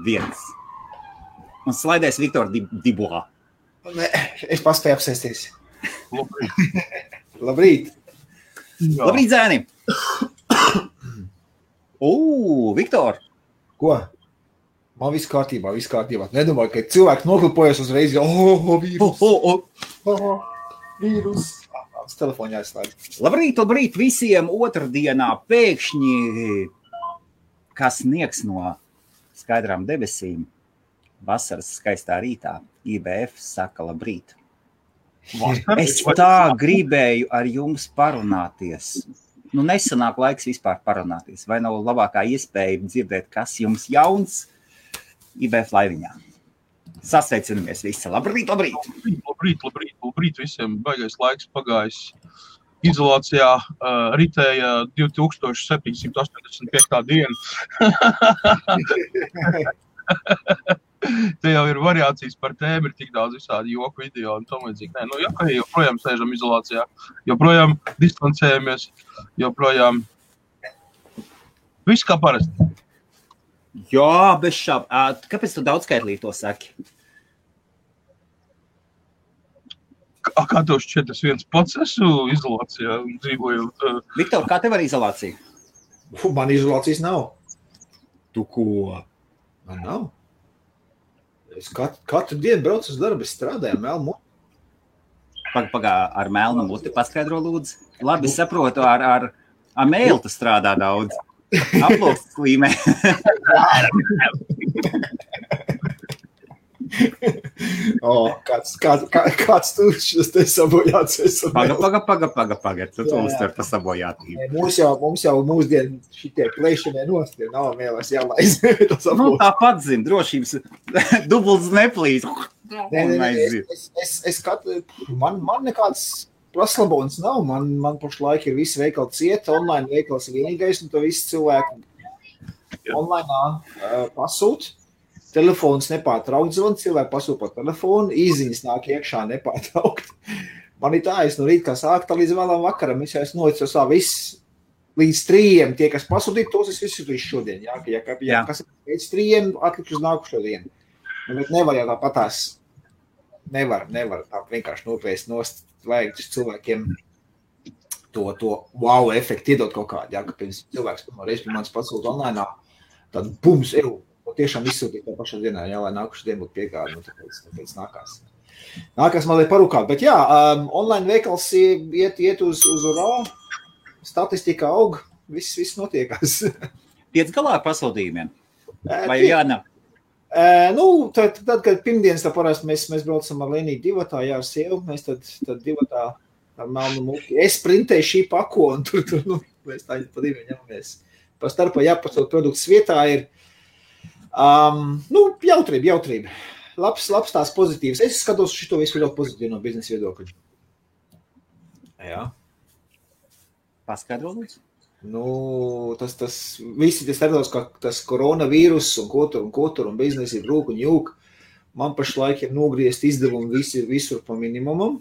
1. Un slaidēs Viktor Dibois. Nē, es paspēju apsēsties. Labrīt. Labrīt. Labrīt, zēni! Viktor! Ko? Man viss kārtībā. Nedomāju, ka cilvēki noklipojas uzreiz, vīrus. Tas telefonā jāizslēdz. Labrīt visiem otrdienā pēkšņi, kas sniegs no skaidrām debesīm. Vasaras skaistā rītā IBF saka labrīt. Es tā gribēju ar jums parunāties. Nesanāk laiks vispār parunāties. Vai nav labākā iespēja dzirdēt, kas jums jauns IBF laiviņā? Sasveicinamies visi. Labrīt! Labrīt visiem. Baigais laiks pagājis. Izolācijā ritēja 2785. diena. Te jau ir variācijas par tēmu, ir tik daudz visādi joku video un tam līdzīgi. Joprojām sēžam izolācijā, joprojām distancējamies, joprojām viss kā parasti. Jā, bez šāb. Kāpēc tu daudzskaitlī to saki? Kā tev šķiet, es viens pats esmu izolācijā un dzīvojot? Viktor, kā tev ar izolāciju? Man izolācijas nav. Tu ko? Man nav. Es katru dienu braucu uz darbu, es strādāju ar melnu muti. Pagā, ar melnu muti paskaidro lūdzu. Labi, saprotu, ar mēlu tu strādā daudz. Aplokstas līmē. Kāds tu šis te sabojāts? Paga. Tu uztver pa sabojātību. Mums jau mūsdien šitie plēšanai nost, ja nav mēlēs jālaiz. Tāpat zin, drošības dubults neplīs. Man nekāds praslabons nav. Man pašlaik ir visi veikali cieta, online veikals ir vienīgais, un to visi cilvēki online pasūt. Telefons nepārtraukt zvanu, cilvēki pasūta par telefonu, īziņas nāk iekšā nepārtraukt. Man ir tā, es no rīta kā sākta līdz vēlam vakaram, es noicu viss līdz 3, tie, kas pasūtīja, tos es visu šodien. Kas ir pēc 3, atlikt uz nākušo dienu. Bet nevar jau tāpatās, nevar tā vienkārši noplēst nost, vajag cilvēkiem to wow efektu iedot kaut kādu, ka pirms cilvēks reiz pie manis pasūta online, tad bums, tiešām izsūtīt tā pašā dienā, lai nākuši dienu būtu piegādi, tāpēc nākās. Nākās man liek parūkāt, bet online veikals iet uz urā, statistika aug, viss notiekās. Tiec galā ar pasūtījumiem? Vai jānāk? Tad, kad pirmdienas tā parasti mēs braucam ar Leniju divatā, ar sievu, mēs tad divatā ar melnu muti. Es printēju šī pako, un tur mēs tā pa diviem ņemamies. Pa starpā jāpasūt produkts vietā ir jautrība. Labs tās pozitīvs. Es skatos šito visu ļoti pozitīvi no biznesa viedokļa. Jā. Paskaidro lūdzu? Tas visi tas starptos, ka tas koronavīrus un ko tur un biznesi ir rūk un jūk. Man pašlaik ir nogriezt izdevumi visur pa minimumam.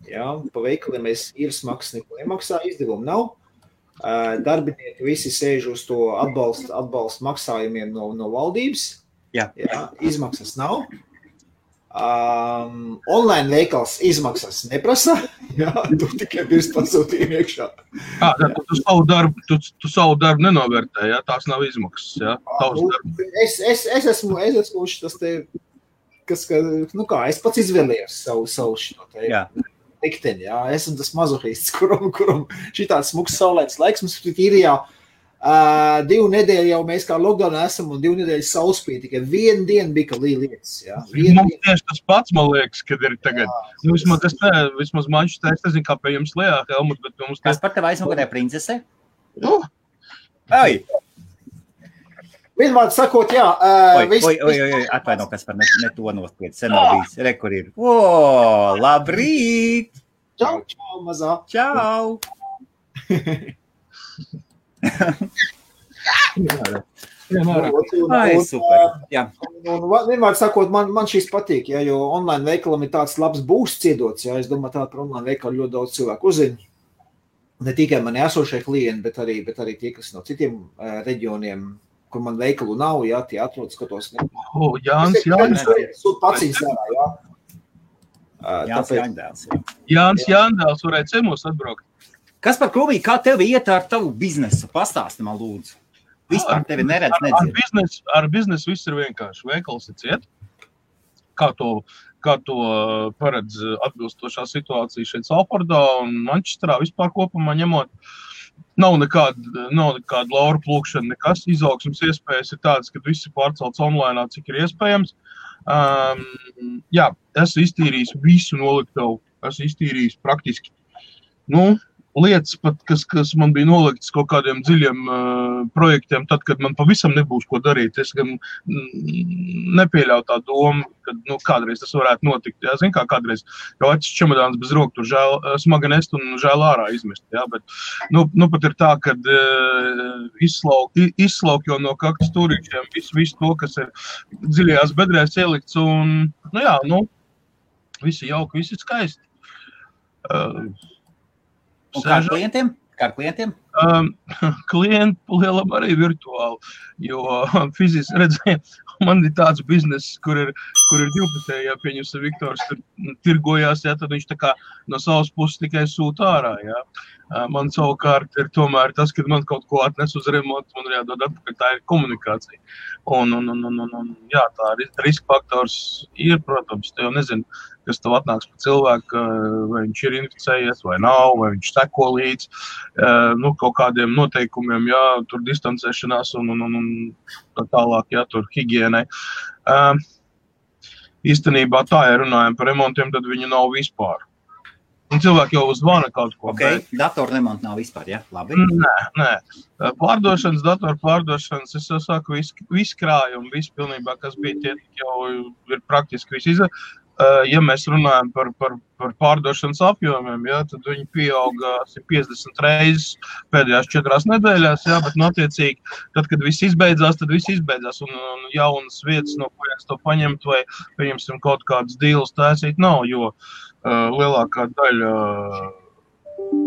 Jā, pa veikaliem mēs īres maksas neko nemaksā, izdevumi nav. Darbinieki visi sēž uz to atbalstu maksājumiem no valdības. Jā, izmaksas nav. Online veikals izmaksas neprasa. Jā, tu tikai pirms pasūtījumi iekšā. Tu savu darbu nenovērtē, jā? Tās nav izmaksas, jā? Es esmu tas te, es pats izvēlējos savu šito te. Jā. Likteni, jā, esmu tas mazohists, kuram šitāds smuks saulētas laiks, mums ir jau 2 nedēļu jau mēs kā lockdownā esam un 2 nedēļas saulspīd, tikai 1 diena bija, ka lietas, jā. Mums tieši tas pats, man liekas, kad ir tagad. Vismaz manšs tā, es nezinu, kā pie jums lejā, Helmut, bet mums... Kas par tev aizmugurē princese? Ai! Vienmēr sakot, jā. Atvaino, kas par ne to nospied. Sen nav bijis. Re, kur ir. Labrīt! Čau, mazā. Čau! Super. Jā. Vienmēr sakot, man šīs patīk, jā, jo online veikalam ir tāds labs būsts iedots. Jā, es domāju, tā par online veikalu ļoti daudz cilvēku uzzina. Ne tikai mani esošie klienti, bet arī tie, kas no citiem reģioniem kur man veikalu nav, jā, tie atrod, skatos. Jānis Sūt pacīs ārā, jā. Jānis Jāndēls varēja ciemos atbraukt. Kas par Kruvī, kā tev iet ar tavu biznesu? Pastāsti man lūdzu. Vispār tevi neredz, nedzird. Ar biznesu viss ir vienkārši. Veikals ir ciet. Kā to paredz atbilstošā situācija šeit Salfordā un Mančesterā vispār kopumā ņemot. Nav nekāda laura plūkšana, nekas. Izaugsmes iespējas ir tādas, ka viss ir pārcelts online, cik ir iespējams. Jā, esmu iztīrījis visu noliktavu. Esmu iztīrījis praktiski. Lietas pat, kas man bija noliktas kaut kādiem dziļiem projektiem, tad, kad man pavisam nebūs ko darīt. Es gan nepieļauju tā domu, ka kādreiz tas varētu notikt. Jā, zin kā kādreiz jau atšķi čemodāns bez roku, tur smagi nest un žēl ārā izmest. Jā, bet pat ir tā, kad izslauk jau no kaktas stūrīšiem visu to, kas ir dziļajās bedrēs ielikts un, visi jauki, visi skaisti. Un kā ar klientiem? Klienti lielam arī virtuāli, jo fiziski redzēju, man ir tāds bizness, kur ir divpusēji, ja pieņemsim Viktors tur tirgojās, ja, tad viņš tā kā no savas puses tikai sūta ārā, ja. Man savukārt ir tomēr tas, kad man kaut ko atnes uz remontu, man ir jādod atpakaļ, tā ir komunikācija. Un jā, tā riska faktors ir, protams, tu jau nezinu, kas tev atnāks pa cilvēku, vai viņš ir inficējies vai nav, vai viņš seko līdz, kaut kādiem noteikumiem, jā, tur distancēšanās un tā tālāk, jā, tur higienai. Īstenībā tā, ja runājam par remontiem, tad viņu nav vispār. Un cilvēki jau zvana kaut ko. Ok, datoru remontu nav vispār, ja? Labi? Nē. Datoru pārdošanas, es jau saku, viss krājumi, viss pilnībā, kas bija tie, jau ir praktiski viss izdarīt. Ja mēs runājam par pārdošanas apjomiem, ja, tad viņi pieauga 50 reizes pēdējās 4 nedēļās, ja, bet attiecīgi, tad, kad viss izbeidzās, un jaunas vietas, no kurienes to paņemt vai pieņemsim kaut kādas dīles taisīt nav, jo lielākā daļa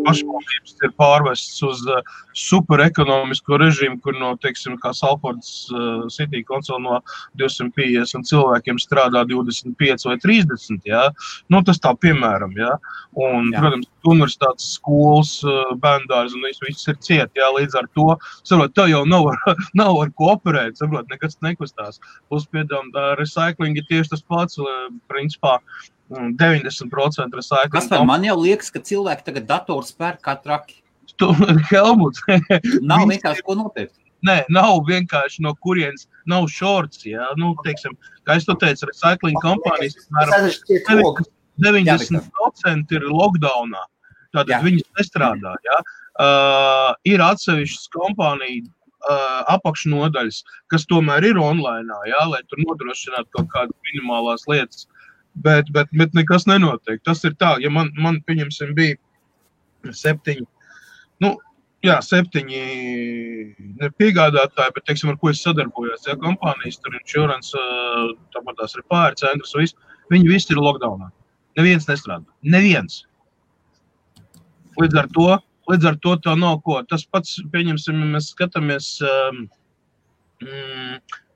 pašvaldības ir pārvests uz superekonomisko režīmu, kur no, teiksim, kā Salfordas City Council no 250 cilvēkiem strādā 25 vai 30, jā. Tas tā piemēram, jā. Un, protams, universitātes skolas, bērndārs un viss ir ciet, jā, līdz ar to, saprot, tev jau nav ar ko operēt, saprot, nekas nekustās. Plus piedām, recycling ir tieši tas pats, principā, 90% recycling. Kaspar, man jau liekas, ka cilvēki tagad dators pērk kā traki. Helmuts. Nav vienkārši ko nopirkt. Nē, nav vienkārši no kurienes, nav shorts, jā. Teiksim, kā es to teicu, recycling kompānijas, 90% ir lockdownā. Tātad viņas nestrādā, jā. Ir atsevišķas kompānija apakšnodaļas, kas tomēr ir online, jā, lai tur nodrošinātu kaut kādas minimālās lietas. Bet nekas nenotiek. Tas ir tā, ja man pieņemsim, bija 7 piegādātāji, bet, teiksim, ar ko es sadarbojos, ja, kompānijas, tur insurance, tāpat tās repāri, centrs, viņi visi ir lockdownā. Neviens nestrādā. Neviens. Līdz ar to tā nav ko. Tas pats, pieņemsim, mēs skatāmies,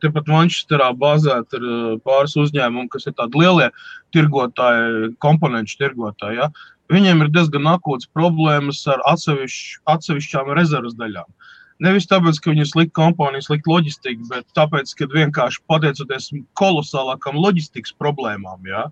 tepat Mančesterā bāzēt ir pāris uzņēmumi, kas ir tādi lielie tirgotāji, komponenču tirgotāji, ja? Viņiem ir diezgan akūtas problēmas ar atsevišķām rezervas daļām. Nevis tāpēc, ka viņi slikta kompānija, slikta loģistika, bet tāpēc, ka vienkārši pateicoties kolosālākam loģistikas problēmām, ja?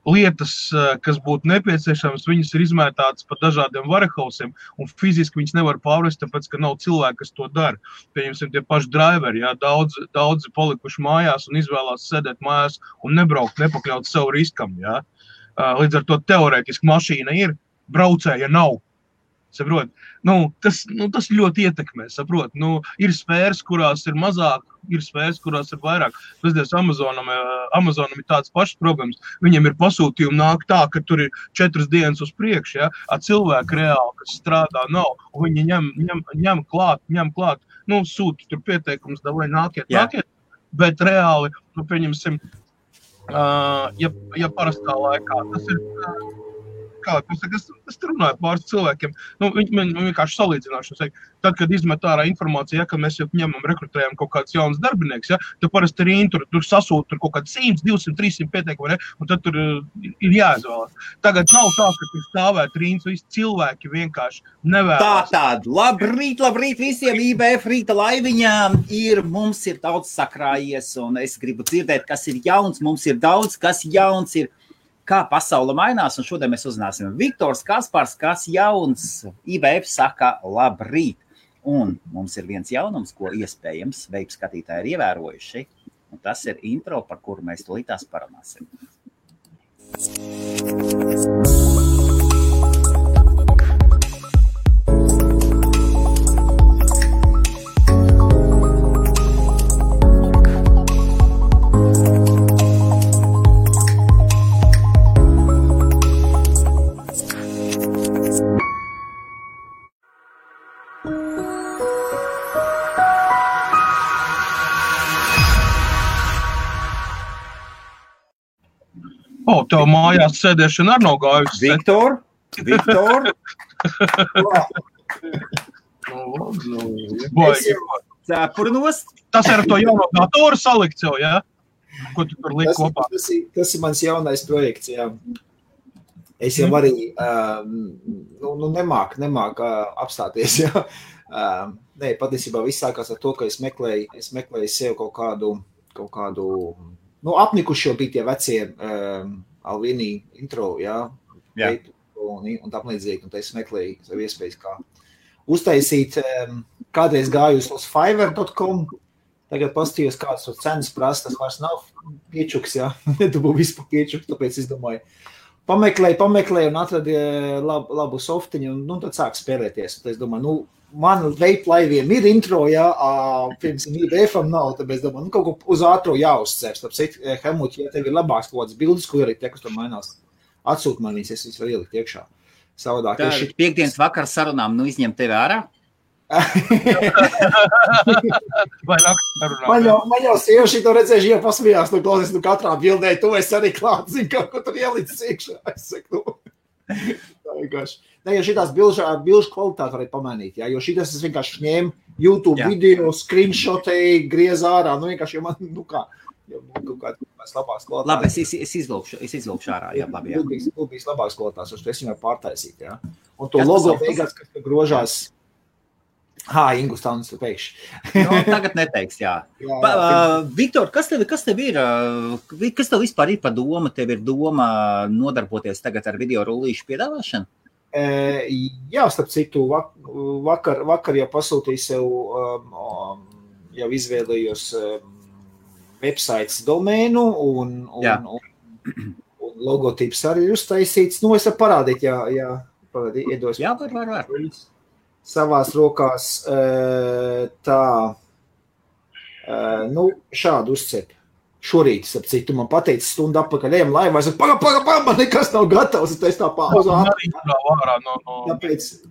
Lietas, kas būtu nepieciešamas, viņas ir izmētātas pa dažādiem warehousiem, un fiziski viņas nevar pārvest, tāpēc, ka nav cilvēki, kas to dara. Pieņemsim, tie paši driveri, jā, daudzi palikuši mājās un izvēlās sēdēt mājās un nebraukt, nepakļaut sev riskam, jā. Līdz ar to teorētiski mašīna ir, braucēja nav. Saprot? Tas ļoti ietekmē, saprot? Ir sfēras, kurās ir mazāk, ir sfēras, kurās ir vairāk. Pazies, Amazonam ir tāds pašs problēmas. Viņiem ir pasūtījumi nāk tā, ka tur ir 4 dienas uz priekšu, ja? Cilvēki reāli, kas strādā, nav. Un viņi ņem klāt. Sūta tur pieteikums, davai nākiet. Bet reāli, pieņemsim, ja parastā laikā, tas ir es runāju pāris cilvēkiem, viņi vienkārši salīdzināšu, tad, kad izmet ārā informācija, ka mēs jau ņemam, rekrutējam kaut kāds jauns darbinieks, tad parasti arī tur sasūta kaut kāds 100, 200, 300 pieteikumi, un tad tur ir jāizvēlas. Tagad nav tā, ka tur stāvēt rīns, visi cilvēki vienkārši nevēlas. Tātad, labrīt visiem IBF rīta laiviņām mums ir daudz sakrājies, un es gribu dzirdēt, kas ir jauns, mums ir daudz, kas jauns ir, kā pasaule mainās, un šodien mēs uzzināsim Viktors Kaspars, kas jauns IBF saka labrīt. Un mums ir viens jaunums, ko iespējams veidu skatītāji ir ievērojuši, un tas ir intro, par kuru mēs tūlītās parunāsim. Tev mājās sēdēšana ar nav gājusi. Viktor. Cepurnos. Tas ir ar to jauno datoru salikt jau, jā? Ko tu tur liek kopā? Tas ir mans jaunais projekts, jā. Es jau arī nemāk apstāties, jā. Nē, patiesībā viss sākās ar to, ka es meklēju sev kaut kādu apnikuši jau bija tie vecie Alvini intro, jā. Un tam līdzīgi, un es meklēju savu iespējas, kā uztaisīt. Kādreiz gāju uz Fiverr.com, tagad pastījos, kāds tur cenas prasa, tas vairs nav piečuks, jā. Nedabū vispār piečuks, tāpēc es domāju, pameklēju un atradu labu softiņu, un tad sāk spēlēties. Tad es domāju, man veiplaiviem ir intro, jā, pirms IBF-am nav, tāpēc es domāju, kaut ko uz ātro jāuzcērs. Tāpēc, Helmut, ja tev ir labāks kaut kāds bildes, ko ielikt, kas tur mainās, atsūt manīs, es visu var ielikt iekšā. Savādāk. Tā piekdienas vakar sarunām, izņem tevi ārā? Vai nakts sarunām? Man jau sieviši to redzējuši, jau pasmījās, klausies, katrā bildē, tu esi arī klāt, zini, kaut ko tur ielicis iekšā. Es saku, tā vienkārši. Ne, jo šitās bilžu kvalitāti varēja pamainīt, jā, jo šitas es vienkārši ņēmu YouTube video, screenshotēju, griez ārā, vienkārši, jo man, kaut kāds labāks kvalitātes. Labi, es izvilkšu ārā, jā, labi, jā. Būs labāks kvalitātes, jo es viņu pārtaisīt, jā. Un to logo beigās, kas grožās, Ingus Taunis pēkšņi. Tagad neteiks, jā. Viktor, kas tev ir? Kas tev vispār ir pa doma? Tev ir doma nodarboties tagad ar video rullīšu piedāvāšanu? Jā, starp citu, vakar jau pasūtīju sev, jau izvēlējos websites domēnu un logotips arī ir uztaisīts. Es varu parādīt, iedos. Jā, var. Savās rokās šādu uzcepu. Šorīt, ap citu, man pateica stundu atpakaļ, ejam laivā, es saku, paga, man nekas nav gatavs, es tā pauzā.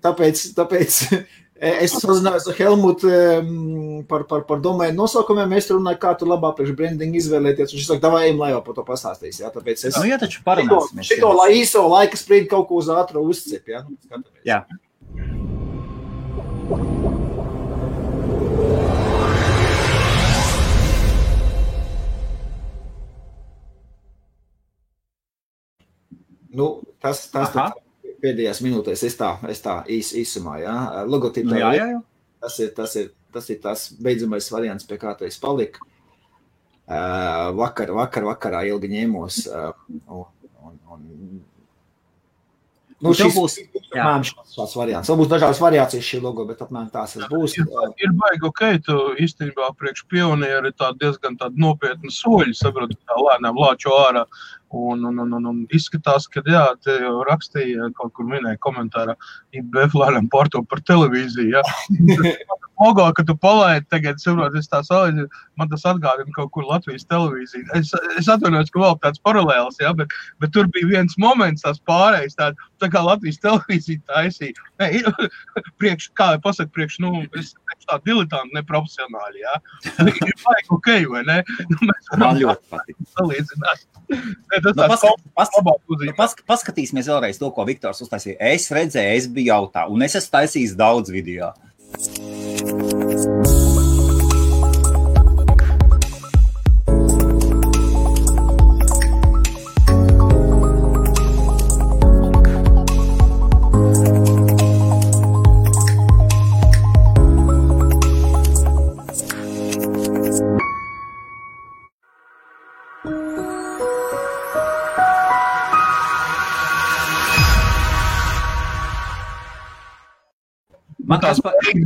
Tāpēc es sazinājos ar Helmutu par domēnu nosaukumiem, mēs runāju, kā tu labāk priekš brandingu izvēlēties, un viņš saka, davai, ejam laivā, par to pastāstīs, jā, tāpēc es... jā, taču parunāsimies. Šito īso laika sprīdi kaut ko uz ātru uzcep, jā? Jā. Tas pēdējās minūtēs es tā īsumā, jā. Logotipa, jā. Tas ir tas beidzamais variants, pie kā tu esi palika. Vakarā ilgi ņēmos. Šāds variants. Vēl būs dažādas variācijas šī logo, bet apmēram tās būs. Ir baigi, tu īstenībā priekš pionieri diezgan nopietni soļi, saprotu, tā lēnām lāčo ārā. Un izskatās, ka jā, te jau rakstīja, kaut kur minēja komentārā, IBF lēnām pārto par televīziju, jā. Logo, ka tu palaidi tagad, saprot, es tā salīdzi, man tas atgādina kaut kur Latvijas televīziju. Es atvainojos, ka vēl tāds paralēls, jā, bet tur bija viens moments, tās pārējais, tā kā Latvijas televīzija taisīja. Kā pasaka, tā diletanti, neprofesionāli, jā. Ir baigi ok, vai ne? Man ļoti patīk. Salīdzināt. Ne, Paskatīsimies vēlreiz to, ko Viktors uztaisīja. Es redzēju, es biju jautā, un es esmu taisījis daudz video.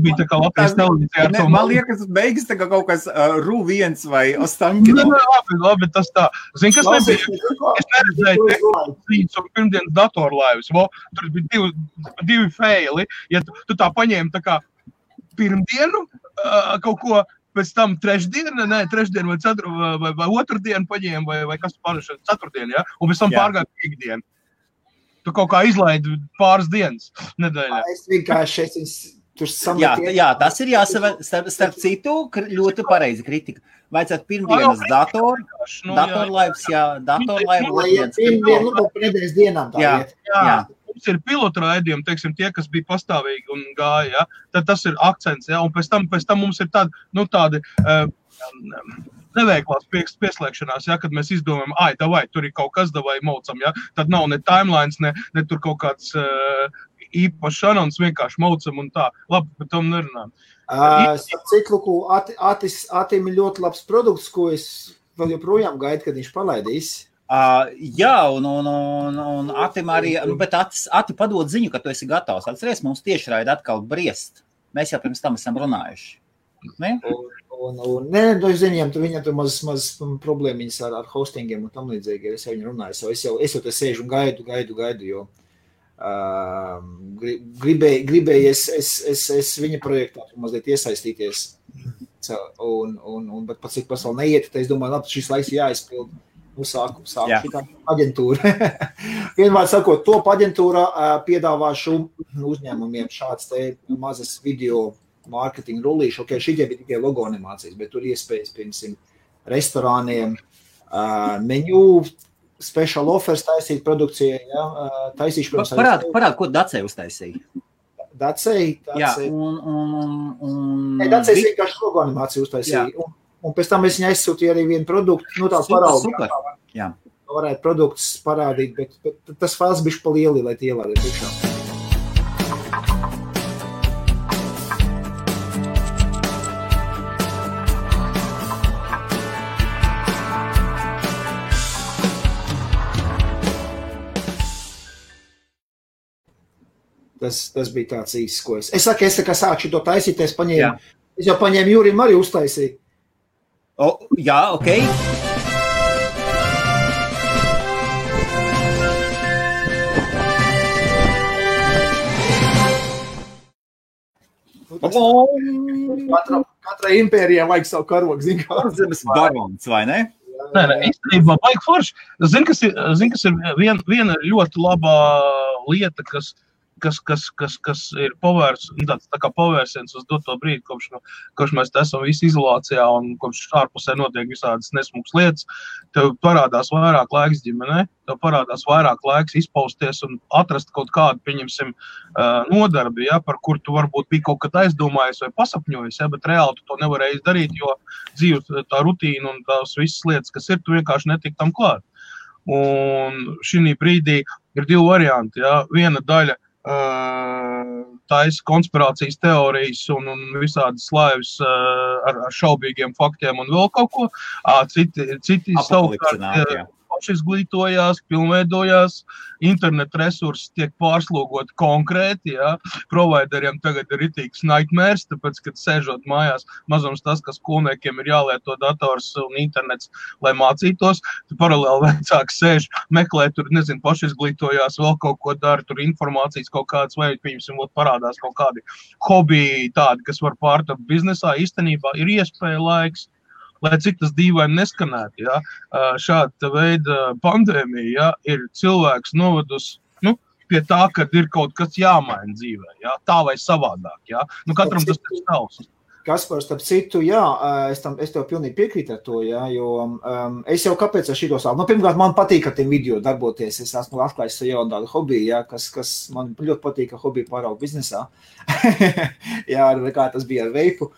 Bija tā kā Latvijas televīzijā ar to man liekas, beigas tā kā kaut kas RU1 vai Ostankino. Labi, tas tā. Zini, kas nebija? Es neredzēju tehnoloģijas un pirmdienas datorlaivas. Tur bija divi faili. Ja tu tā paņēmi tā kā pirmdienu kaut ko, pēc tam trešdienu vai otrdienu paņēmi vai kas pārēšana ceturtdienu, ja? Un pēc tam pārgāja piekdienu. Tu kaut kā izlaidi pāris dienas nedēļā. Es vienkārši tur sameties. Jā, tas ir starp citu ļoti pareizi kritika. Vajadzētu pirmdienas datorlaivas, datorlaiva. Lai pirmdienu, bet nedēļas dienām tā iet. Jā. Mums ir pilotraidījumi, teiksim, tie, kas bija pastāvīgi un gāja, ja? Tad tas ir akcents, ja? Un pēc tam mums ir tādi neveiklās pieslēgšanās, ja, kad mēs izdomājam, tur ir kaut kas, davai maucam, ja, tad nav ne timelines, ne tur kaut kāds īpašs anons, vienkārši maucam un tā. Labi, par tom nerunājam. Cikluku Atim ir ļoti labs produkts, ko es vēl joprojām gaidu, kad viņš palaidīs. Jā, un Atim arī, bet Ati padod ziņu, ka tu esi gatavs. Atceries, mums tieši raida atkal briest. Mēs jau pirms tam esam runājuši. Ne? Es ziņām, viņam tur maz problēmiņas ar hostingiem un tam līdzīgi, es jau viņu runāju, es jau te sēžu un gaidu, jo gribēju es viņa projektā mazliet iesaistīties, bet pats cik vēl neiet, tad es domāju, labi, šis laiks jāizpild, sāku šitā aģentūra. Vienmēr sakot, top aģentūra piedāvāšu uzņēmumiem šāds te mazas video mārketinga rullīši, šitie bija tikai logo animācijas, bet tur iespējas, piemēram, restorāniem, menu, special offers taisīt produkcijai, ja, taisīšu, protams, Parād, ko Dacei uztaisīja? Dacei? Jā, Dacei vienkārši logo animāciju uztaisīja, un pēc tam es viņai aizsūtīju arī vienu produktu, tā paraugu. Super, jā. Varētu produktus parādīt, bet tas fails bišķi pa lieli, lai tie ielādē priekšā. Tas bija tāds īsts, ko es saku, es tā kā sākšu to taisīt, es jau paņēmu Jurim arī uztaisīt. Jā, ok. Katrai impērijai vajag savu karogu, zin kā. Zemes barons, vai ne? Nē, īstenībā baigi forši. Zin, kas ir viena ļoti labā lieta, kas ir tā kā pavērsiens uz doto brīdi, kopš mēs esam visi izolācijā un kopš ārpusē notiek visādas nesmukas lietas, tev parādās vairāk laiks ģimenē, tev parādās vairāk laiks izpausties un atrast kaut kādu, pieņemsim, nodarbi, ja, par kur tu varbūt bija kaut kad aizdomājies vai pasapņojis, ja, bet reāli tu to nevarēji darīt, jo dzīves tā rutīna un tās visas lietas, kas ir, tu vienkārši netik tam klāt. Un šī brīdī ir divi varianti, ja, viena daļa taisa konspirācijas teorijas un visādas laivas ar šaubīgiem faktiem un vēl kaut ko. Citi savukārt pašizglītojās, pilnveidojās, internet resursi tiek pārslogoti konkrēti, ja. Provideriem tagad ir ritīgs nightmares, tāpēc, kad sēžot mājās, mazums tas, ka skolniekiem ir jālieto dators un internets, lai mācītos, tu paralēli vecāks sēž, meklē tur, pašizglītojās, vēl kaut ko dara, tur informācijas kaut kādas, vai, pieņemsim, parādās kaut kādi hobiji tādi, kas var pārtapt biznesā, īstenībā ir iespēja laiks, lai cik tas dīvaini neskanētu, ja, šāda veida pandēmija, ja, ir cilvēks novedus, pie tā, kad ir kaut kas jāmaina dzīvē, ja, tā vai savādāk, ja. Katram tas ir savs. Kaspar, starp citu, jā, es tev pilnīgi piekrītu ar to, jā, jo es jau kāpēc ar šito sāku. Pirmkārt, man patīk ar tiem video darboties. Es esmu atklājis jau tādu hobiju, jā, kas man ļoti patīk, ka hobiju pārauga biznesā. Jā, kā tas bija ar veipu.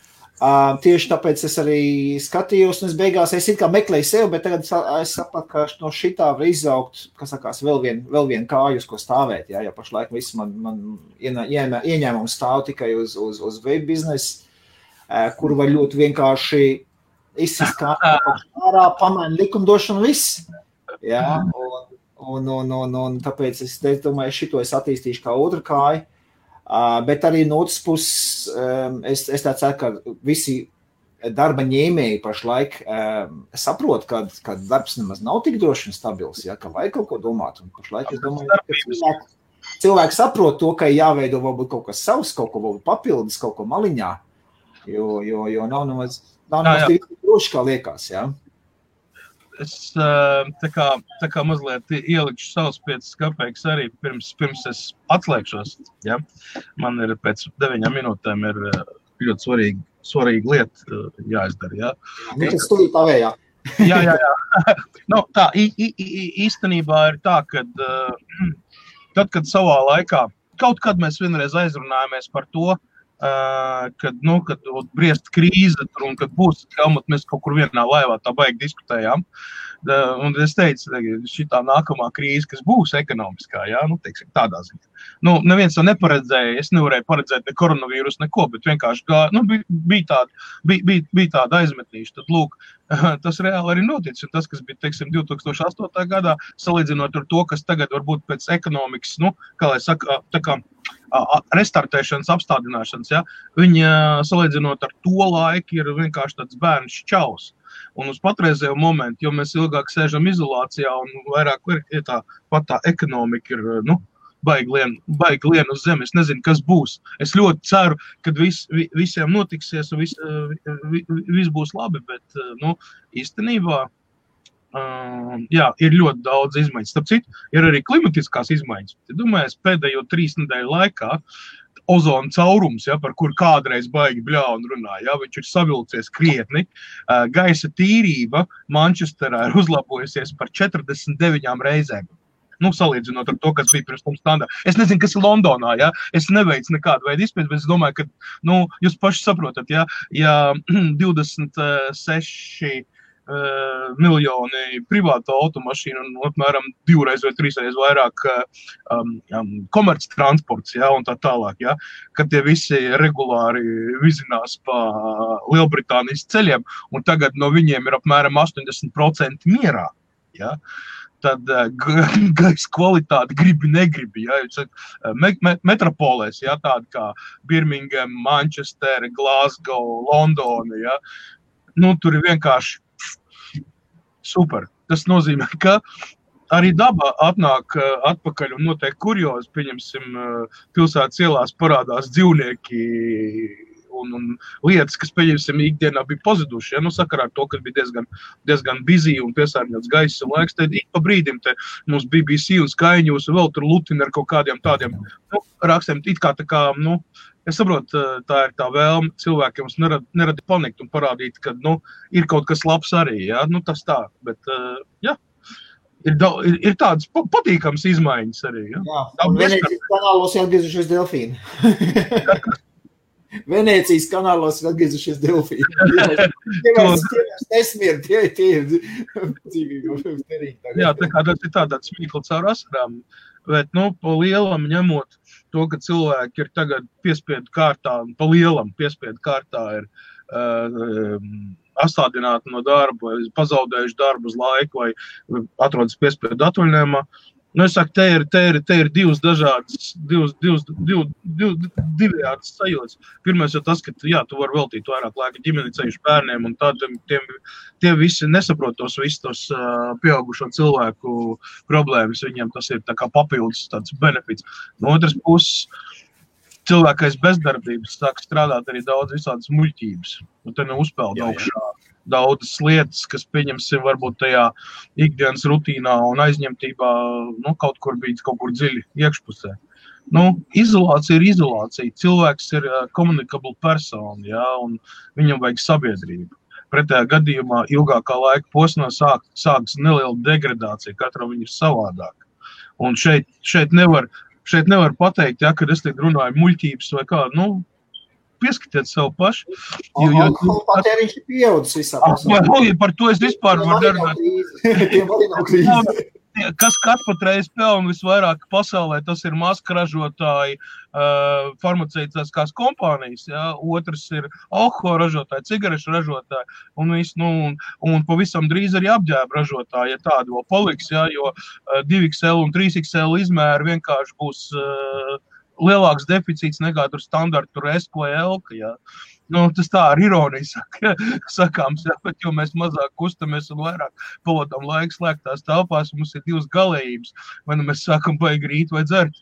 Tieši tāpēc es arī skatījos, un es beigās it kā meklēju sev, bet tagad es sapratu, ka no šitā var izaugt, kas sakās, vēl vien kāju, uz ko stāvēt, jā, jo pašlaik viss man ieņēmums stāv tikai uz veipu biznesu. Kur var ļoti vienkārši izsist ārā, pamaina likumdošanu viss. Jā, un tāpēc es domāju, šito es attīstīšu kā otru kāju. Bet arī no otras puses, es tā ceru, ka visi darba ņēmēji pašlaik saprot, ka darbs nemaz nav tik droši un stabils, jā, ka vajag kaut ko domāt. Un pašlaik es domāju, ka cilvēki saprot to, ka jāveido varbūt kaut kas savs, kaut ko varbūt papildus, kaut ko maliņā. Jo nav nemaz tik droši, kā liekas, jā. Es tā kā mazliet ielikšu savus 5 kapeikas arī pirms es atslēgšos, jā. Man ir pēc 9 minūtēm ir ļoti svarīga lieta jāizdara, jā. Tas studīt tavējā. Jā. Nu, tā, īstenībā ir tā, kad tad, kad savā laikā, kaut kad mēs vienreiz aizrunājāmies par to, kad briest krīze tur un kad būs helmut, mēs kaut kur vienā laivā tā baigi diskutējām. Un es teicu, šitā nākamā krīze, kas būs ekonomiskā, jā, teiksim, tādā ziņā. Neviens to neparedzēja, es nevarēju paredzēt ne koronavīrus, neko, bet vienkārši bija tāda aizmetīša. Tad, lūk, tas reāli arī notic, un tas, kas bija, teiksim, 2008. gadā, salīdzinot ar to, kas tagad varbūt pēc ekonomikas, kā lai saka, tā kā restartēšanas, apstādināšanas, ja, viņa salīdzinot ar to laiku ir vienkārši tāds bērns šķaus. Un uz patreizējo momentu, jo mēs ilgāk sēžam izolācijā un vairāk ir tā ekonomika ir, baigi lien uz zemi. Es nezinu, kas būs. Es ļoti ceru, ka visiem notiksies un viss būs labi, bet, īstenībā, jā, ir ļoti daudz izmaiņas. Starp citu, ir arī klimatiskās izmaiņas. Domāju, pēdējo 3 nedēļu laikā ozona caurums, ja, par kur kādreiz baigi bļaun runā, ja, viņš ir savilcies krietni. Gaisa tīrība Manchesterā ir uzlabojusies par 49 reizēm. Salīdzinot ar to, kas bija pirms tam standā. Es nezinu, kas ir Londonā, ja, es neveicu nekādu veidu izpēti, bet es domāju, ka, jūs paši saprotat, ja 26 miljoni privāto automašīnu un apmēram 2 vai 3 vairāk komerc transports, ja, un tā tālāk, ja, kad tie visi regulāri vizinās pa Lielbritānijas ceļiem, un tagad no viņiem ir apmēram 80% mierā, ja. Tad gaisa kvalitāte negribi, ja, metropolēs, ja, tādi kā Birmingham, Manchester, Glasgow, Londona, ja, tur ir vienkārši super. Tas nozīmē, ka arī daba atnāk atpakaļ un notiek kuriozi, pieņemsim, pilsētas ielās parādās dzīvnieki un lietas, kas, pieņemsim, ikdienā bija pazuduši, ja, sakarā ar to, ka bija diezgan busy un piesārņots gaiss un laiks, tad ik pa brīdim te mums BBC un Sky News un vēl tur lutina ar kaut kādiem tādiem, rakstiem, it kā tā kā, es saprotu, tā ir tā vēlme cilvēkiem nerada panikt un parādīt, ka, ir kaut kas labs arī, ja, tas tā, bet, jā, ir tādas patīkams izmaiņas arī, ja. Jā, un Venēcijas kanālos atgriezušies delfīni. Venēcijas kanālos atgriezušies delfīni. Tie ir dzīvīgi. Jā, tā kā tas ir tāds smīkli caur asarām, bet, pa lielam ņemot to, ka cilvēki ir tagad piespiedu kārtā, pa lielam piespiedu kārtā ir atstādināti no darba, pazaudējuši darbu uz laiku vai atrodas piespiedu atvaļinājumā. Es saku, te ir divas dažādas, divējādas sajūtas. Pirmais jau tas, ka, jā, tu vari veltīt vairāk laika ģimeni ceļš bērniem, un tad tie visi nesaprot tos visus pieaugušo cilvēku problēmas. Viņiem tas ir tā kā papildus tāds benefits. No otras puses, cilvēkais bezdarbības sāk strādāt arī daudz visādas muļķības. Un te neuzpeld augšā daudzas lietas, kas, pieņemsim, varbūt tajā ikdienas rutīnā un aizņemtībā, kaut kur bija kaut kur dziļi iekšpusē. Izolācija ir izolācija. Cilvēks ir communicable persona, ja, un viņam vajag sabiedrību. Pretējā gadījumā ilgākā laika posmā sākas neliela degradācija, katram viņa ir savādāk. Un šeit nevar pateikt, ja, kad es tiek runāju muļķības vai kā, pieskatiet sev paši. Alkohola patēriņš ir pieaudzis visā pasaulē. Par to es vispār varu nerunāt. Tiem arī nav krīze. Kas patreiz pelna visvairāk pasaulē, tas ir maska ražotāji, farmaceitiskās kompānijas, ja? Otrs ir alkohola ražotāji, cigarešu ražotāji, un pavisam drīz arī apģērba ražotāji, ja tādu vēl paliks, ja? Jo 2XL un 3XL izmēri vienkārši būs lielāks deficīts nekā tur standarta, tur S vai L, ja? Tas tā ar ironiju sakāms, ja, bet jo mēs mazāk kustamies un vairāk pavadām laiku slēgtās telpās, mums ir divas galējības, vai mēs sākam baigi rīt vai dzert.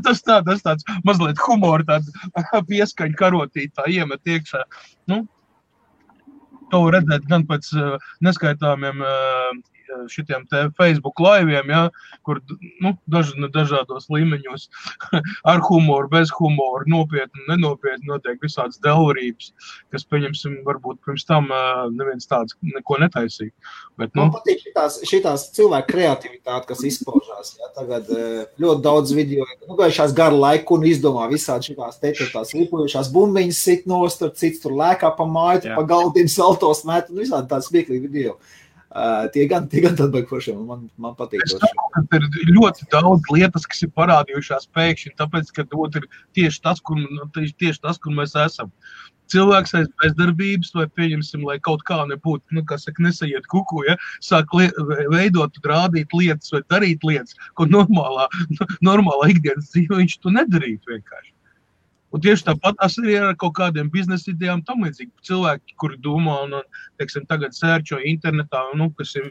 Tas tāds mazliet humora, tāda pieskaņa karotītā iemet iekšā. To redzēt gan pēc neskaitāmiem šitiem te Facebook laiviem, ja, kur dažādos līmeņos ar humoru, bez humoru, nopietni, nenopietni notiek visādas delvarības, kas, pieņemsim, varbūt pirms tam neviens tāds neko netaisīja. Bet, Man patīk šitās cilvēku kreativitāte, kas izpaužās. Ja, tagad ļoti daudz video, gājušās garu laiku un izdomā visādi šitās lipojušās bumbiņas sit nost, cits tur lēkā pa māju, pa galdiem saltos met un visādi tāds smieklīgi video. Tie gan tad baigi foršiem, man patīk. Ir ļoti daudz lietas, kas ir parādījušās pēkšņi, tāpēc, ka ir tieši tas, kur mēs esam. Cilvēks aiz bezdarbības, vai pieņemsim, lai kaut kā nebūtu, nesaiet kuku, ja, sāk veidot, rādīt lietas vai darīt lietas, ko normālā ikdienas dzīve viņš to nedarītu vienkārši. Un tieši tāpat arī ar kaut kādiem biznesa idejām tam līdzīgi. Cilvēki, kuri domā un, teiksim, tagad sērčo internetā, kas ir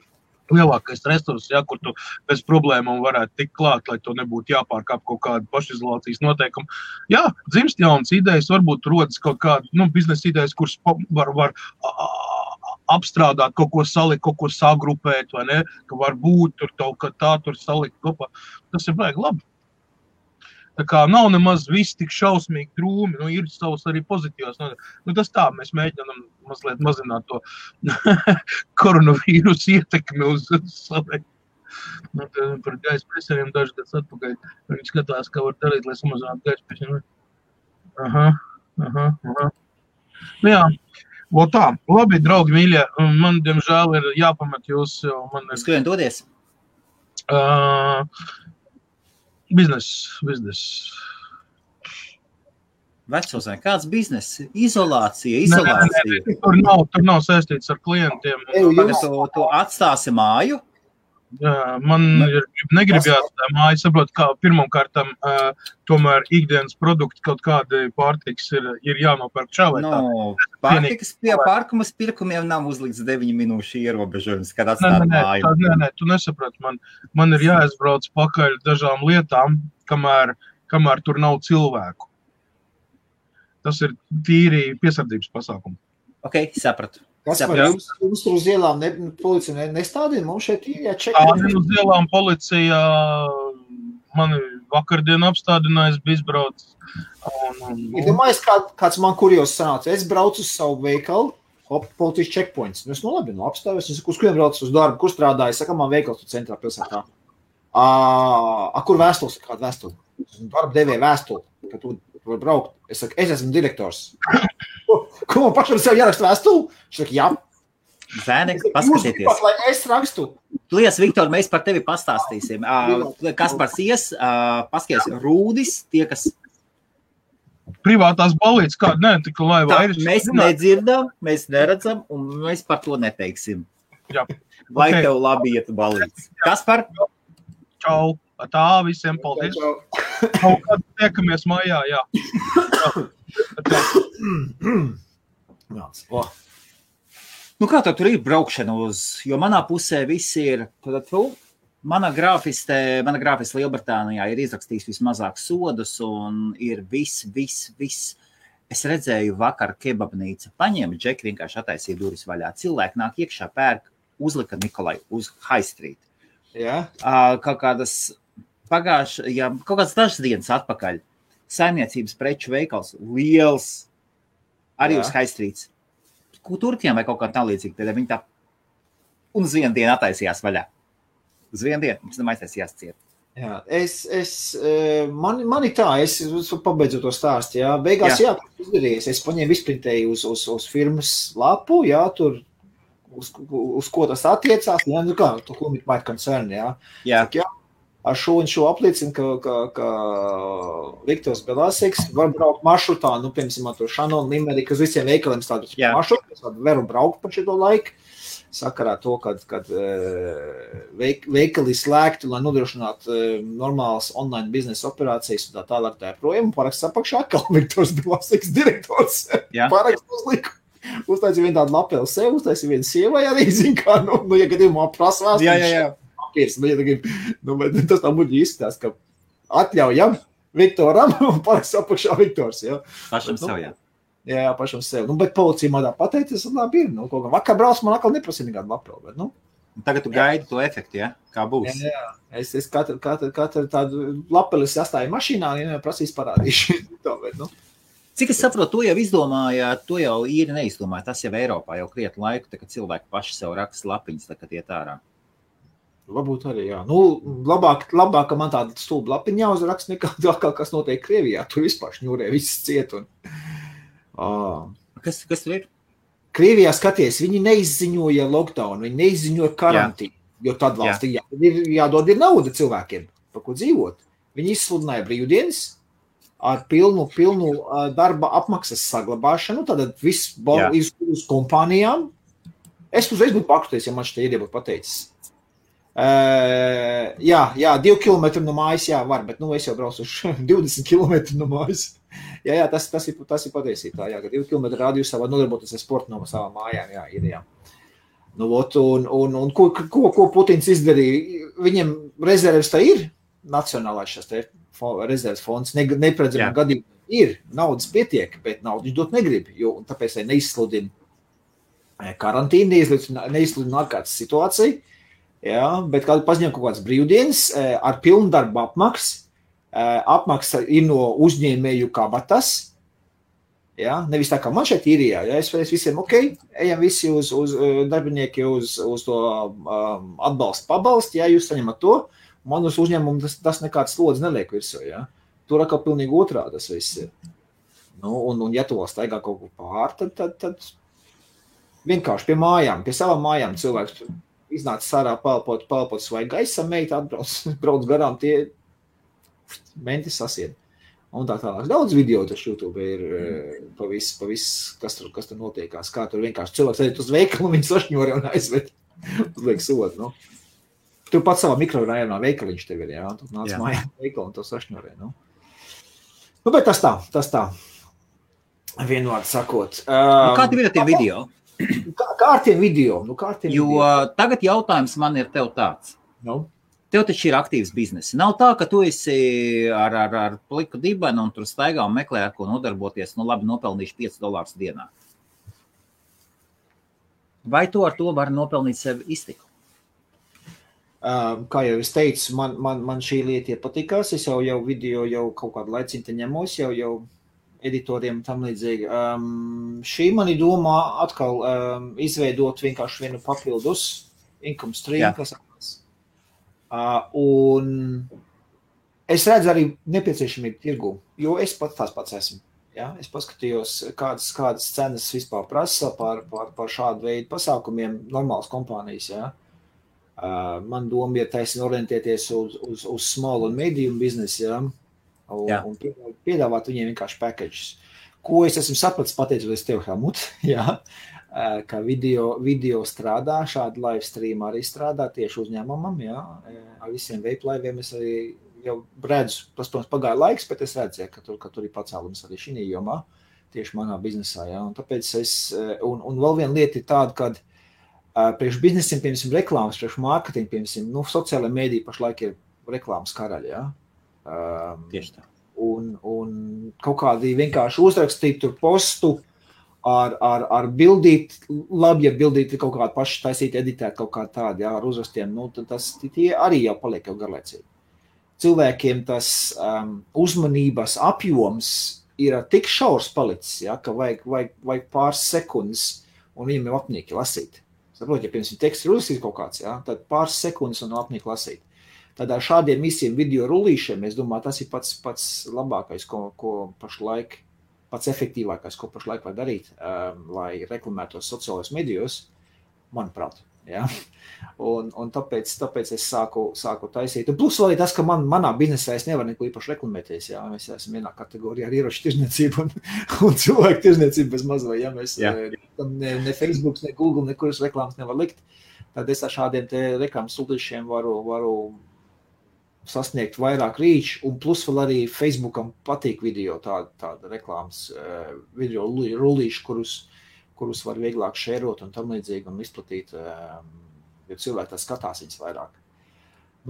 lielākais resurs, ja, kur tu bez problēmām varētu tikt klāt, lai to nebūtu jāpārkāp kaut kāda pašizolācijas noteikuma. Jā, dzimst jaunas idejas, varbūt rodas kaut kāda biznesa idejas, kuras var apstrādāt, kaut ko salikt, kaut ko sagrupēt, vai ne, ka var būt tur salikt kopā. Tas ir baigi labi. Tā kā nav nemaz viss tik šausmīgi drūmi, ir savs arī pozitīvs. Tas tā, mēs mēģinām mazliet mazināt to koronavīrusu ietekmi uz savu. Par gaisa piesārņojumu dažas gadus atpakaļ. Viņi skatās, kā var darīt, lai samazinātu gaisa piesārņojumu. Aha. Jā, vēl tā. Labi, draugi mīļie, man, diemžēl, ir jāpamet jūs. Uz kurien dodies? Biznes. Vecos, kāds biznes? Izolācija. Tur nav saistīts ar klientiem. Tu atstāsi māju? Man negribjās tā māja, saprot, kā pirmkārtam tomēr ikdienas produkti kaut kādi pārtiks ir jānopērk čā vai tā. Pārtikas pie pārkumas pirkumiem nav uzlikts 9 minūšu ierobežojums, kad atstāt māju. Nē, tu nesaprati. Man ir jāizbrauc pakaļ dažām lietām, kamēr tur nav cilvēku. Tas ir tīri piesardzības pasākumi. Ok, sapratu. Kas par jums tur uz ielām policija nestādīja? Mums šeit ir jāčekā. Uz ielām policija mani vakardien apstādinājis, bija izbraucis. Domājies, kāds man kurjos sanāca. Es braucu uz savu veikalu, policijas checkpoints. Es labi, apstājos. Es saku, uz kuriem braucu uz darbu, kur strādāju? Saka, man veikals tur centrā pilsētā. Kur vēstules? Kāda vēstule? Darba devēja vēstuli, ka tu var braukt. Es saku, es esmu direktors. Ko man pašam sev jāraksta vēstuli? Viņš saka, jā. Zēni, paskatieties. Lai es rakstu. Lies, Viktor, mēs par tevi pastāstīsim. Kaspars ies, paskaties, Rūdis, tie, kas... Privātās balītes, kāda tik laivā ir. Mēs nedzirdam, mēs neredzam, un mēs par to neteiksim. Jā. Lai tev labi iet balītes. Kaspar? Čau. Tā, visiem paldies. Kaut kādā tiekamies mājā, jā. Kā tev tur ir braukšana jo manā pusē viss ir, mana grāfiste Lielbritānijā ir izrakstījis vismazāk sodus un ir viss. Es redzēju vakar kebabnīca, paņēma džeki, vienkārši attaisīja durvis vaļā. Cilvēki nāk iekšā, pērk, uzlika Nikolai uz High Street. Jā. Kaut kādas kaut kādas dažas dienas atpakaļ. Saimniecības preču veikals, liels, arī uz High Streets. Turkiem vai kaut kā tā līdzīga. Tad viņi tā un uz vienu dienu attaisījās vaļā. Uz vienu dienu, mums tam aiztaisījās ciet. Jā, man ir tā, es pabeidzu to stāstu, jā. Beigās, jā, izdarījies. Es paņēmu izprintēju uz firmas lapu, jā, tur, uz ko tas attiecās, jā, nu kā, to whom it might concern, jā. Jā. Saka, jā, ar šo un šo apliecinu, ka Viktors Belāsiks var braukt maršrutā, nu, piemēram, to Šanonu, Limeriku, uz visiem veikaliem tādu maršrutu, es varu braukt par šito laiku. Sakarā to, kad veikali slēgti, lai nodrošinātu normālas online biznesa operācijas un tā tālāk tā projām, paraksts apakšā atkal Viktors Belāsiks direktors. Paraksts uzliku. Uztaisīja vienu tādu lapeli sev, uztaisīja vienu sievai arī, zin kā, nu, ja gadījumā prasvās. Jā. Papīrs, tas tā muļi izskatās, ka atļaujam Viktoram un paraksts apakšā Viktors. Jā. Pašam sev, jā. Jā, pašam sev. Nu, bet policija man tā pateicis, labi ir. Nu, kaut kā vakar brauc, man atkal neprasīja nekādu lapeli, bet, nu. Tagad tu gaidi to efektu, ja? Kā būs? Jā. Es katru tādu lapelis astāju mašīnā, ja prasīs parādīšu. Tā, bet, nu. Cik es saprotu, to jau izdomājāt, to jau īri neizdomāja. Tas jau Eiropā jau krietni laiku, tā, kad cilvēki paši sev raksta lapiņas, tā, kad iet ārā. Varbūt arī, jā. Nu, labāk, ka man tāda stulba lapiņa jāuzraksta nekā kas notiek Krievijā. Tur vispār šņūrē viss ciet un... Kas tur ir? Krievijā skaties, viņi neizziņoja lockdown, viņi neizziņoja karantīnu, jo tad valstī jādod ir nauda cilvēkiem, par ko dzīvot. Viņi izsludināja brīvdienas ar pilnu darba apmaksas saglabāšanu, tad viss uz kompānijām. Es uzreiz būtu pakruties, ja man šitā ideja būtu pateicis. 2 kilometri no mājas, jā, var, bet, nu, es jau braucu uz 20 kilometri no mājas. Jā, tas ir patiesībā, jā, ka 2 kilometri rādījusā var nodarboties ar sportu no savām mājām, jā, ir, jā. Nu, un ko Putins izdarīja? Viņiem rezerves tā ir, nacionālais šās te rezerves fonds, neparedzamā gadījumā ir, naudas pietiek, bet naudu viņš dot negrib, jo tāpēc neizsludina karantīnu, neizsludina ārkārtas situāciju, jā, bet kādu paziņo kaut kāds brīvdienas ar pilnu darbu apmaksu, apmaksa ir no uzņēmēju kabatas, ja? Nevis tā kā man šeit īrijā, ja? Es visiem, ejam visi uz darbinieki uz to atbalstu pabalstu, ja jūs saņemat to, man uz uzņēmumu tas nekāds slodzi neliek virsū, ja? Tur atkal pilnīgi otrā tas viss ir. Nu, un ja to staigā kaut ko pār, tad vienkārši pie mājām, pie savām mājām cilvēks iznāca sārā palpot svaigu gaisam, meita brauc garām tie mentis sasied. Un tā tālāk. Daudz video taču YouTube ir pa visu, kas tur notiekās. Kā tur vienkārši cilvēks aiziet uz veikalu, viņi sašņori un aizved. Uzliek sodu, nu. Tu pats savā mikrorajonā veikaliņš tev ir, jā. Tu nāc mājā veikalu un to sašņorē, nu. Nu, bet tas tā. Vienvārds sakot. Kā tev ir tie video? Kā ar tiem video? Nu, jo tagad jautājums man ir tev tāds. Nu? Tev taču ir aktīvs bizness. Nav tā, ka tu esi ar pliku dibenu un tur staigā un meklē, ar ko nodarboties, nu labi, nopelnīšu $5 dienā. Vai tu ar to vari nopelnīt sev iztiku? Kā jau es teicu, man šī lieta patikās. Es jau video kaut kādu laiciņu te ņemos, jau editoriem tam līdzīgi. Šī mani domā atkal izveidot vienkārši vienu papildus income stream, kas un es redzu arī nepieciešamību tirgu, jo es tās pats esmu. Ja? Es paskatījos, kādas cenas vispār prasa par šādu veidu pasākumiem normālas kompānijas. Ja? Man doma ir taisni orientēties uz small un medium biznesu, ja? Un piedāvāt viņiem vienkārši packages. Ko es esmu sapratis pateicoties tev, Helmut, ja? Ka video strādā, šādi live stream arī strādā tieši uzņēmumam, jā, ar visiem veiplaiviem es arī jau redzu, tas, protams, pagāja laiks, bet es redzu, ja, ka tur ir pacēlums arī šī jomā, tieši manā biznesā, jā, un tāpēc un vēl viena lieta ir tāda, kad priekš biznesiem, piemēram, reklāmas, priekš mārketingu, piemēram, nu, sociālajā mēdī pašlaik ir reklāmas karaļi, jā. Tieši tā. Un kaut kādi vienkārši uzrakstīt tur postu, ar bildīt, labi, ja bildīt kaut kādu pašu taisīt, editēt kaut kā tādu, jā, ar uzrastiem, nu, tad tie arī jau paliek jau garlaicīgi. Cilvēkiem tas uzmanības apjoms ir tik šaurs palicis, jā, ka vajag pāris sekundes, un viņam ir apnīki lasīt. Saprot, ja pirms teksts ir uzrakstīt kaut kāds, jā, tad pāris sekundes un apnīki lasīt. Tad ar šādiem visiem video rullīšiem, es domāju, tas ir pats labākais, ko pašlaik, pats efektīvākais, ko pašlaik var darīt, lai reklamētos sociālajos medijos, manuprāt. Ja? Un tāpēc es sāku taisīt. Un plus vēl ir tas, ka manā biznesā es nevaru neko īpaši reklamēties. Ja? Mēs esam vienā kategorijā ar ieroču tirzniecību un cilvēku tirzniecību bez mazvai. Ja? Mēs ne Facebook, ne Google, nekuras reklāmas nevar likt. Tad es ar šādiem te reklāmas rullīšiem varu sasniegt vairāk rīču, un plus vēl arī Facebookam patīk video, tāda reklāmas video rullīši, kurus var vieglāk šērot un tam līdzīgi un izplatīt, jo cilvēki tā skatās viņas vairāk.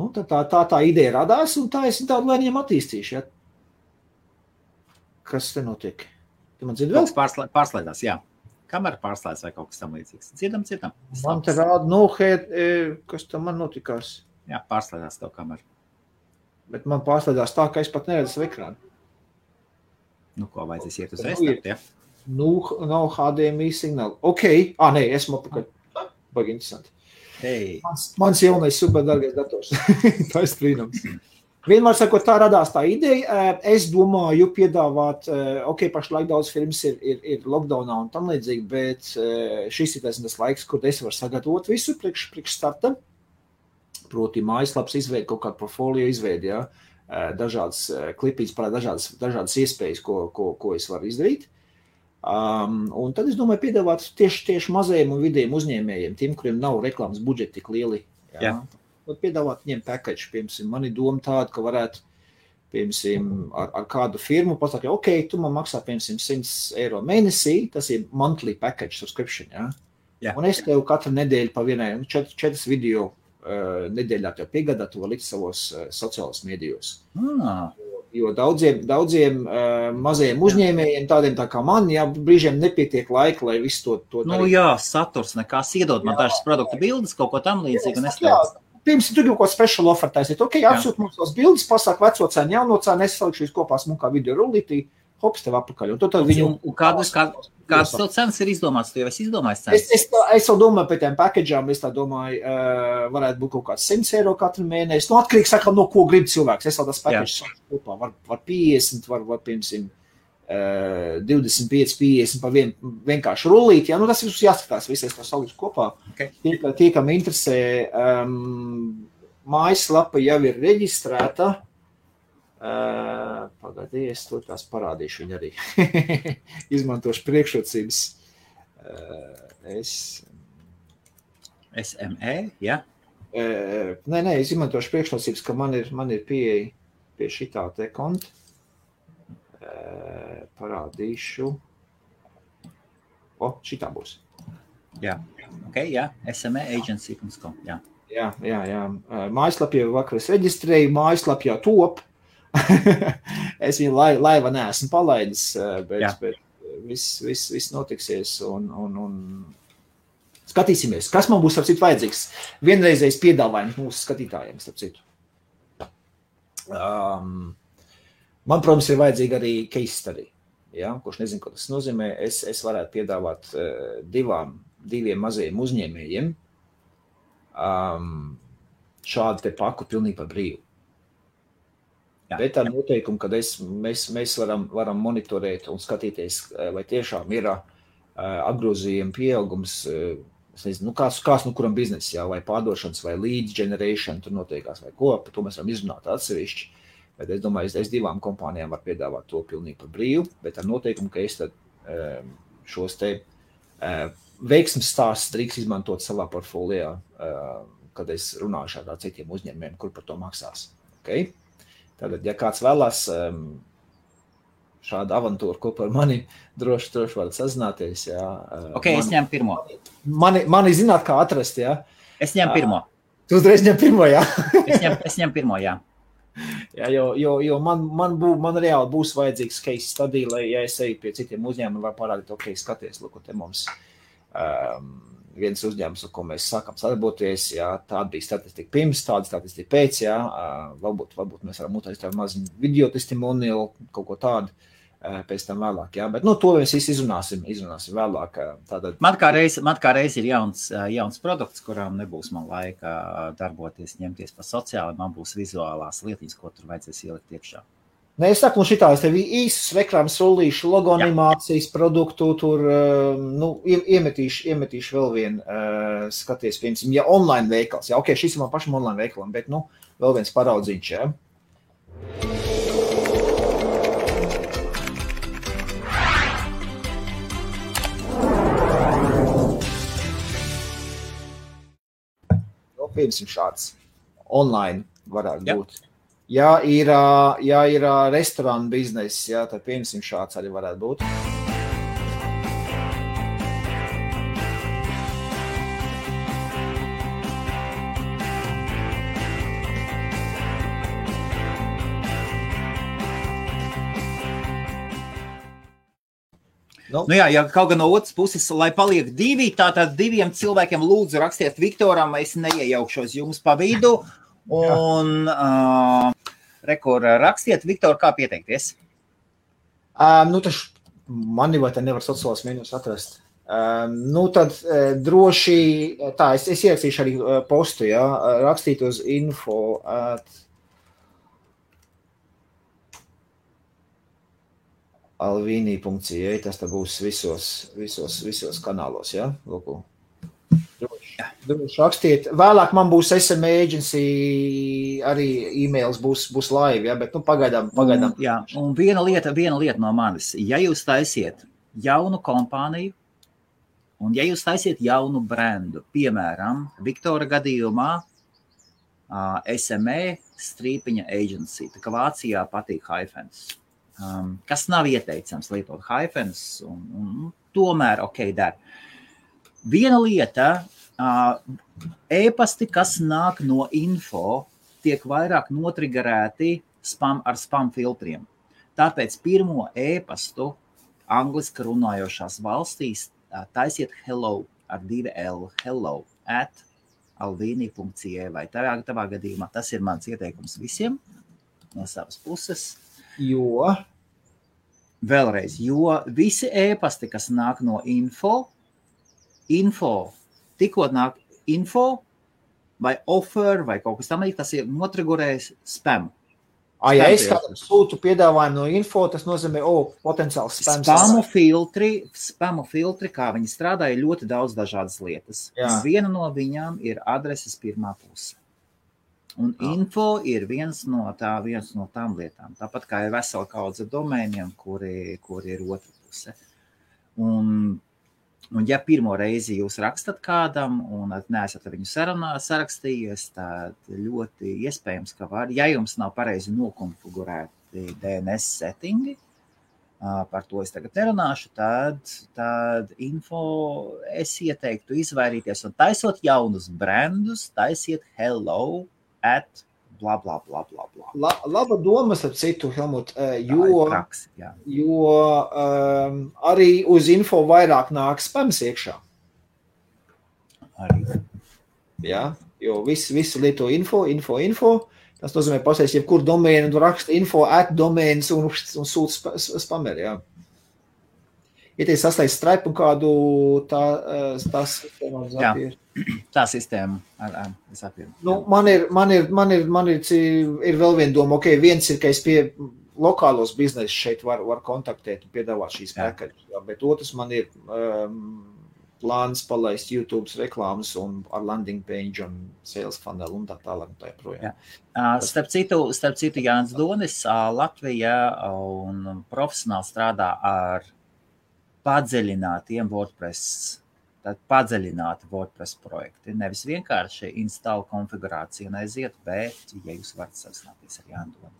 Nu, tā ideja radās, un tā es tādu lēniem attīstīšu. Ja? Kas te notiek? Tu man dzirdi vēl? Pārslēdās, jā. Kamera pārslēdās vai kaut kas tam līdzīgs. Dzirdam. Man te rāda, kas tam man notikās? Jā, pārslēdās tev kamera. Bet man pārslēdās tā, ka es pat neredzu savu ekrānu. Nu, ko vajadzēs iet uz restart, ja? Nu, nav HDMI signāli. Ok, nē, esmu apakaļ. Baigi interesanti. Hey. Mans jaunais superdargais dators. Tā ir brīnums. Vienmēr sakot, tā radās tā ideja. Es domāju piedāvāt, pašlaik daudz filmas ir lockdownā un tam līdzīgi, bet šis ir tas laiks, kur es varu sagatavot visu priekš starta. Proti mājaslaps izveidi, kaut kādu portfolio izveidi, ja? Dažādas klipītes, dažādas iespējas, ko es varu izdarīt. Un tad es domāju piedāvāt tieši mazajiem un vidējiem uzņēmējiem, tiem, kuriem nav reklāmas budžeti tik lieli. Ja? Piedāvāt viņiem package, piemēram, man ir doma tāda, ka varētu, piemēram, ar kādu firmu pasaka, ok, tu man maksā, piemēram, 100 eiro mēnesī, tas ir monthly package subscription, ja? Yeah. Un es tev katru nedēļu pa vienai, 4 video nedēļā tev piegādā, tu var likt savos sociālos medijos. Jo daudziem mazajiem uzņēmējiem, tādiem tā kā man, brīžiem nepietiek laika, lai visu to darīt. Nu jā, saturs nekās iedod man dažas produktu bildes, kaut ko tam līdzīgi, un es tev... Pirms tu kaut ko special offer taisīt, ok, apsūt mums tās bildes, pasāk veco cēnu, jauno cēnu, es salikšu kopā smukā video rullītī, hops tev apakaļ. Un kādas tev cenas ir izdomāts? Tu jau esi izdomājis cenas? Es jau domāju par tiem package'ām, es tā domāju, varētu būt kaut kāds 100 eiro katru mēnesi. Nu, atkarīgs saka, no ko grib cilvēks. Es vēl tas packages kopā. Var 50, var piemēram, 25, 50 par vienkārši rullīt. Ja? Nu, tas visus jāskatās, visais to salikšu kopā. Okay. Tie, kam interesē, mājaslapa jau ir reģistrēta. Pagādī, es to tās parādīšu viņu arī. Izmantošu priekšrocības. SME, ja? Nē, es izmantošu priekšrocības, ka man ir pieeja pie šitā te konta. Parādīšu. Šitā būs. Jā, ok, jā. SMEagency.com, jā. Jā. Mājaslapī jau vakar es reģistrēju, mājaslapī jau top. Es viņu laiva neesmu palaidis, bet viss notiksies un skatīsimies, kas man būs, starp citu, vajadzīgs. Vienreizējs piedāvājums mūsu skatītājiem, starp citu. Man, protams, ir vajadzīga arī case study, ja? Kurš nezinu, ko tas nozīmē. Es varētu piedāvāt diviem mazajiem uzņēmējiem šādu te paku pilnīgi par brīvu. Jā. Bet ar noteikumu, kad mēs varam monitorēt un skatīties, vai tiešām ir apgrozījuma pieaugums, es nezinu, kāds kuram biznes, jā, vai pārdošanas, vai lead generation, tur noteikās, vai ko, par to mēs varam izrunāt atsevišķi. Bet es domāju, es divām kompānijām var piedāvāt to pilnīgi par brīvu, bet ar noteikumu, ka es tad šos te veiksmes stāstus drīkst izmantot savā portfolijā, kad es runāšu ar citiem uzņēmējiem, kur par to maksās. Okay? Tātad, ja kāds vēlās šādu avantūru kopā ar mani, droši varat sazināties. Jā. Ok, es ņemu pirmo. Mani zināt, kā atrast, jā? Es ņemu pirmo. Tu uzreiz ņem pirmo, jā? Es ņemu pirmo, jā. Jā, jo man reāli būs vajadzīgs case study, lai, ja es eju pie citiem uzņēmumiem, var parādīt, ok, skaties, lūk, te mums viens uzņēmums, ar ko mēs sākam sadarboties, jā, tāda bija statistika pirms, tāda statistika pēc, jā, varbūt mēs varam uztaisīt tādu maziņu video testimonial, kaut ko tādu pēc tam vēlāk, jā, bet, to mēs visi izrunāsim vēlāk. Tātad. Man kā reiz ir jauns produkts, kurām nebūs man laika darboties, ņemties pa sociāli, man būs vizuālās lietiņas, ko tur vajadzēs ielikt iekšā. Nē, es saku, šitā, es tev īsus reklāmas rullīšu, logo animācijas produktu, tur, iemetīšu vēl vienu, skaties, piemēram, ja online veikals, jā, ok, šis ir man pašam online veikalam, bet, vēl viens paraudzīņš, jā. Piemēram, šāds online varētu būt. Ja ir restorāna bizness, jā, tad piemēram šāds arī varētu būt. Jā, ja kaut gan no otras puses, lai paliek divi, tātad diviem cilvēkiem lūdzu rakstiet Viktoram, es neiejaukšos jums pa vidu. Un rekur rakstiet, Viktor, kā pieteikties? Mani vai te nevar sociālās mēģinus atrast. Tad droši, tā, es ierakstīšu arī postu, jā, rakstīt uz info @alvini.ca, tas tā būs visos kanālos, jā, lūku. Droši rakstiet. Vēlāk man būs SM Agency, arī e-mails būs live, ja, bet pagaidām. Jā, un viena lieta no manis. Ja jūs taisiet jaunu kompāniju, un ja jūs taisiet jaunu brendu, piemēram, Viktora gadījumā SME /agency, tā kā Vācijā patīk hyphens, kas nav ieteicams lietot hyphens, un tomēr ok, der. Viena lieta, e-pasti, kas nāk no info, tiek vairāk notrigerēti ar spam filtriem. Tāpēc pirmo e-pastu angliski runājošās valstīs taisiet hello ar 2L, hello @alvini.ca, vai tavā gadījumā tas ir mans ieteikums visiem no savas puses. Jo visi e-pasti, kas nāk no info, tikko nāk info vai offer vai kaut kas tam līdz, tas ir notrigurējis spam. Ja es kādam sūtu piedāvājumu no info, tas nozīmē, potenciāls spam. Spamu filtri, kā viņi strādā, ir ļoti daudz dažādas lietas. Viena no viņām ir adreses pirmā puse. Un info ir viens no tām lietām. Tāpat kā ir vesela kaudze domēniem, kuri ir otra puse. Un ja pirmo reizi jūs rakstat kādam un neesat ar viņu sarakstījies, tad ļoti iespējams, ka var, ja jums nav pareizi nokonfigurēti DNS settingi, par to es tagad nerunāšu, tad info es ieteiktu izvairīties un taisot jaunus brandus, taisiet hello @ bla. Laba domas ar citu, Helmut, jo arī uz info vairāk nāk spams iekšā. Arī. Jā, jo visi lieto info. Tas nozīmē pasēs jebkur domēnu, tu raksta info @domēns un sūta spameri, jā. Ja te saslēdz Stripe un kādu tās sistēmā zapīri. Tā sistēma ar zapīri. Man ir vēl viena doma, ok, viens ir, ka es pie lokālos biznesus šeit var kontaktēt un piedāvāt šīs pakaļus, bet otrs man ir plāns palaist YouTube reklāmas un ar landing page un sales funnel un tā tālāk un tā joprojām. Starp citu, Jānis Donis, Latvija un profesionāli strādā ar padziļinātiem WordPress projekti. Nevis vienkārši install konfigurāciju neaiziet, bet, ja jūs varat sasināties ar Jānu Doni.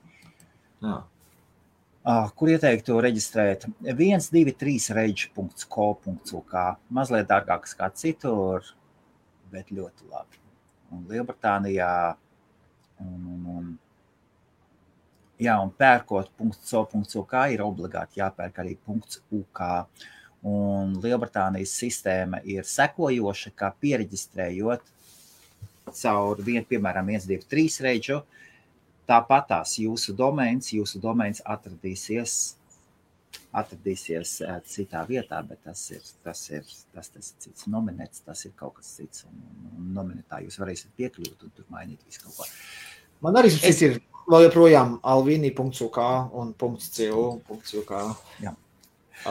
Kur ieteiktu reģistrēt 123rage.co.uk. Mazliet dārgākas kā citur, bet ļoti labi. Un Lielbritānijā un Jā, un pērkot .co.uk ir obligāti jāpērk arī .uk. Un Lielbritānijas sistēma ir sekojoša, kā piereģistrējot caur piemēram 123 reģu, tāpatās jūsu domains atradīsies citā vietā, bet tas ir cits nominēts, tas ir kaut kas cits, un nominētā jūs varēsiet piekļūt un tur mainīt visu kaut ko. Man arī ir vēl joprojām alvini.uk un .co.uk. Jā.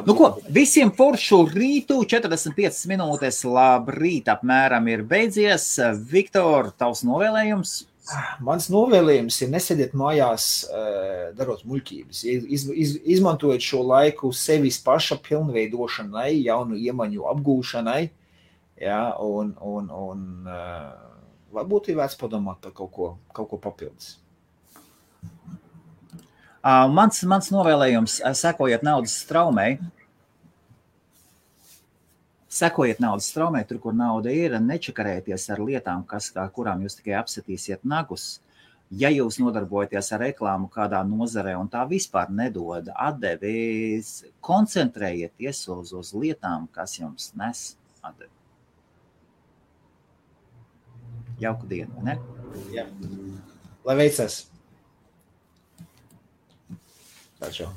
Nu ko, visiem foršu rītu, 45 minūtes, labrīt apmēram ir beidzies. Viktor, tavs novēlējums? Mans novēlējums ir nesēdiet mājās, darot muļķības. Izmantojiet šo laiku sevis paša pilnveidošanai, jaunu iemaņu apgūšanai, ja, un varbūt ir vērts padomāt par kaut ko papildus. Mans novēlējums, sekojiet naudas straumei. Sekojiet naudas straumei, tur, kur nauda ir, nečakarēties ar lietām, kurām jūs tikai apsitīsiet nagus. Ja jūs nodarbojaties ar reklāmu kādā nozarē un tā vispār nedod atdevis, koncentrējieties uz lietām, kas jums nes atdevi. Jauku dienu, ne? Jā. Lai veicas! Čau.